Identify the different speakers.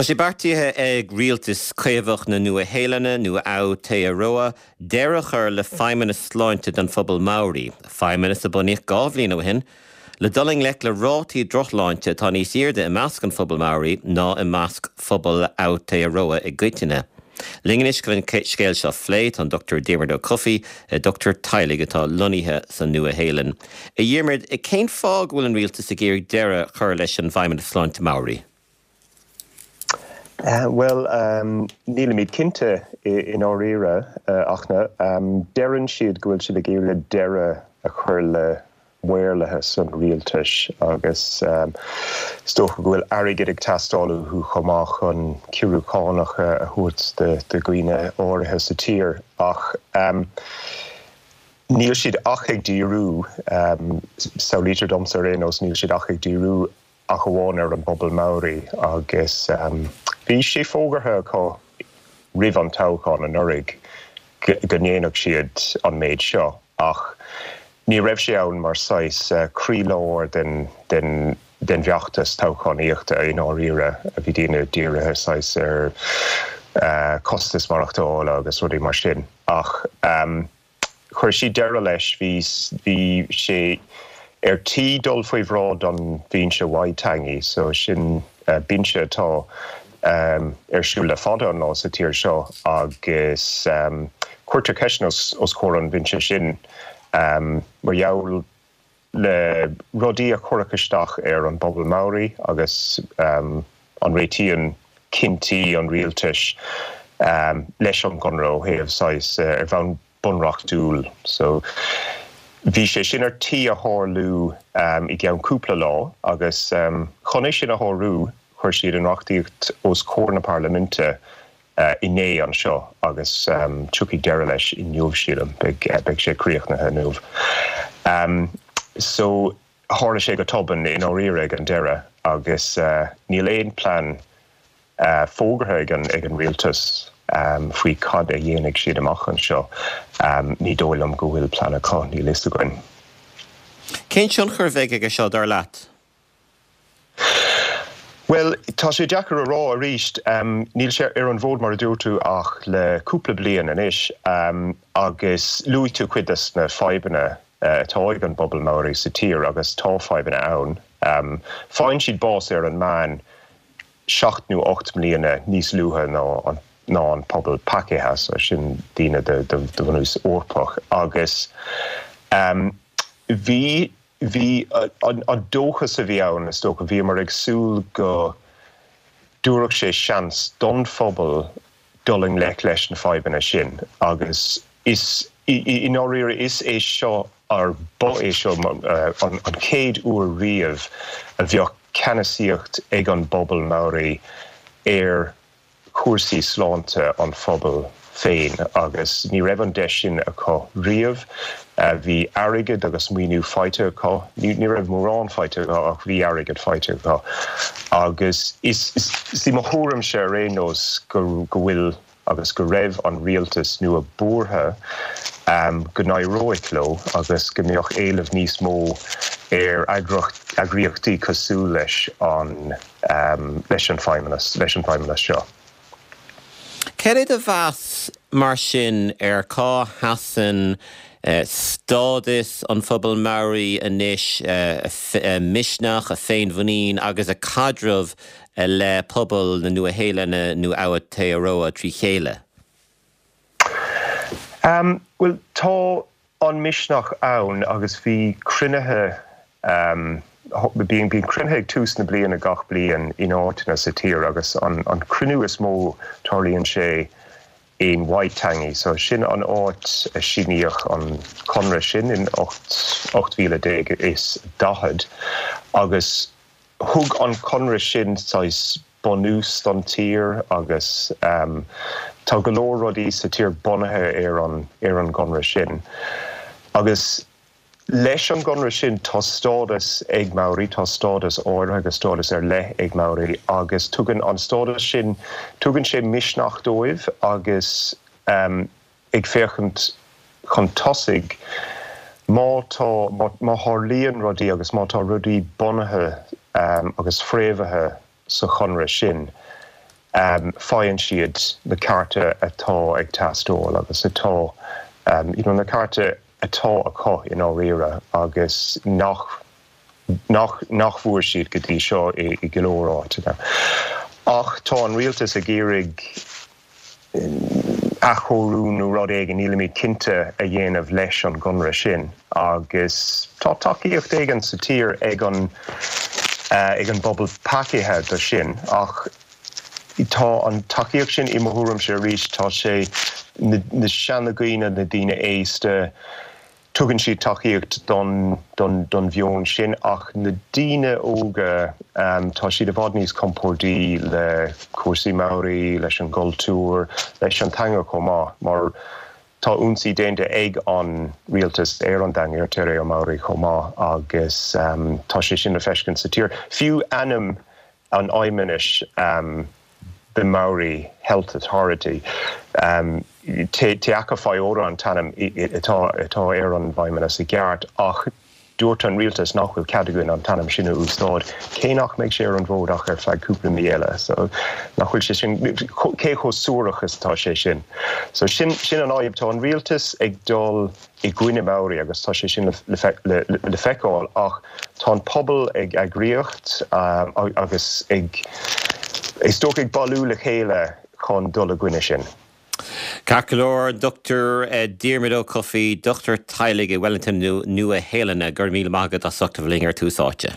Speaker 1: Tá sé beartaithe ag rialtas Caomhach na Nua-Shéalainne, nó Aotearoa, deireadh a chur le feidhmeannas sláinte don phobal Maori, feidhmeannas a bunaíodh 2 bhliain ó shin le dul i ngleic le rátaí drochshláinte atá níos airde i measc an phobail Maori ná i measc phobal Aotearoa i gcoitinne. Linn anois chun an scéal seo a phlé tá an Dr Diarmuid Ó Cofaigh, dochtúir teaghlaigh atá lonnaithe sa Nua-Shéalainn. A Dhiarmuid, cén fáth go bhfuil an rialtas ag iarraidh deireadh a chur leis an bhFeidhmeannas Sláinte Maori?
Speaker 2: Bhuel, nílimid cinnte i ndáiríre, ach deireann siad go bhfuil siad ag iarraidh deireadh a chur le maorlathas an rialtais agus is dócha go bhfuil airgead ag teastáil uathu chomh maith chun ciorrú cánach a thabhairt do dhaoine áirithe sa tír. Ach níl siad ach ag díriú, samhlaítear domsa ar aon nós, níl siad ach ag díriú ach amháin ar an bpobal Maori agus bhí sé fógartha acu roimh an toghchán anuraidh go ndéanfadh siad an méid seo ach ní raibh sé ann mar saghas croílár den den den bhfeachtas toghchánaíochta i ndáiríre. Bhí daoine dírithe saghas ar costas maireachtála agus rudaí mar sin ach Chuir siad deireadh leis. Bhí bhí sé ar tí dul faoi bhráid an Bhinse Waitangi, so sin binse atá ar siúl le fada an lá sa tír seo agus cuirtear ceisteanna os comhair an bhinse sin mar gheall le rudaí a chuirfeadh isteach ar an bpobal Maori agus an réitíonn cinntí an rialtais leis an gconradh ó thaobh saghas ar bhonn bunreachtúil. So bhí sé sin ar tí a tharlú i gceann cúpla lá agus chun é sin a shárú chuir siad an reachtaíocht os comhair na parlaiminte inné anseo agus tiocfaidh deireadh leis inniu, sílim. Beidh sé críochnaithe inniu. So, tharla sé go tobann i ndáiríre ag an deireadh agus níl aon plean fógartha ag an ag an rialtas faoi cad a dhéanfaidh siad amach anseo. Ní dóigh liom go bhfuil plean acu, níl fhios againn.
Speaker 1: Cén tionchar a bheidh aige seo, dar leat?
Speaker 2: Bhuel, tá sé deacair a rá arís. Níl sé ar an bhfód mar a dúirt tú ach le cúpla bliain anois agus luaigh tú cuid des na fadhbanna atá ag an bpobal Maori sa tír agus tá fadhbanna ann. Faigheann siad bás ar an meán seacht nó 8 mbliana níos luaithe ná an ná an pobal Pakeha, so sin daoine de bhunús Eorpach agus bhí Bhí an dóchas a bhí ann, is dócha, bhíomar ag súil go dtabharfadh sé seans don phobal dul i ngleic leis na fadhbanna sin agus is, i ndáiríre, is é seo, or ba é seo an chéad uair riamh a bheadh ceannasaíocht ag an bpobal Maori ar chúrsaí sláinte an phobail féin agus ní raibh an deis sin acu riamh. Bhí airgead agus maoiniú faighte acu, ní raibh mórán faighte acu ach bhí airgead faighte acu agus is í mo thuairimse ar aon nós go bhfuil agus go raibh an rialtas nua buartha go n-éireoidh leo agus go mbeadh éileamh níos mó ar eagraíochtaí cosúil leis an leis an feidhmeannas, leis an bhfeidhmeannas seo.
Speaker 1: Cad é do mheas mar sin ar cá sheasann stádas an phobail Maori anois, a misneach, a féinmhuinín agus a caidreamh le pobal na Nua-Shéalainne nó Aotearoa trí chéile?
Speaker 2: Bhuel, tá an misneach ann agus bhí cruinnithe, bíonn cruinnithe ag tús na bliana gach bliain in áiteanna sa tír agus an cruinniú is mó tarlaíonn sé in Waitangi, so sin an áit a síníodh an conradh sin in 1840 agus Thug an conradh sin saghas bunús don tír agus tá go leor rudaí sa tír bunaithe ar an ar an gconradh sin. Agus leis an gconradh sin tá stádas ag Maori, tá stádas áirithe agus stádas ar leith ag Maori agus tugann an stádas sin, tugann sé misneach dóibh agus ag féachaint chun tosaigh, má tá, má tharlaíonn rudaí agus má tá rudaí bunaithe agus fréamhaithe sa chonradh sin, Faigheann siad na cearta atá ag teastáil agus atá, you know, na cearta atá acu i ndáiríre agus nach, nach, nach bhfuair siad go dtí seo i go leor áiteanna. Ach tá an rialtas ag iarraidh athchóiriú nó rud éigin, nílimid cinnte, a dhéanamh leis an gconradh sin agus tá tacaíocht éigin sa tír ag an ag an bpobal Pākehā do sin ach tá an tacaíocht sin, i mo thuairimse arís, tá sé na seanadhaoine, na daoine aosta, Tugann siad tacaíocht don don mheon sin ach na daoine óga, tá siad i bhfad níos compórdaí le cúrsaí Maori, leis an gcultúr, leis an teanga chomh maith mar tá ionsaí déanta ag an rialtas ar an dteanga, ar Te Reo Maori chomh maith agus tá sé sin le feiscint sa tír. Fiú ainm an fheidhmeannais the Maori Health Authority, Te Aka Whai Ora an t-ainm atá ar an bhfeidhmeannas i gceart ach dúirt an rialtas nach bhfuil cead againn an t-ainm sin a úsáid, cé nach mbeidh sé ar an bhfód ach ar feadh cúpla mí eile. So nach bhfuil sé sin, cé chomh suarach is atá sé sin? So sin an fhadhb, tá an rialtas ag dul i gcoinne Maori agus tá sé sin le feiceáil ach tá an pobal ag eagraíocht agus ag, is dócha, ag bailiú le chéile chun dul i gcoinne sin.
Speaker 1: Ceart go leor, Dr Diarmuid Ó Cofaigh, dochtúir teaghlaigh i Wellington Nua Shéalainne, go raibh míle maith agat as ucht a bheith linn ar Tús Áite.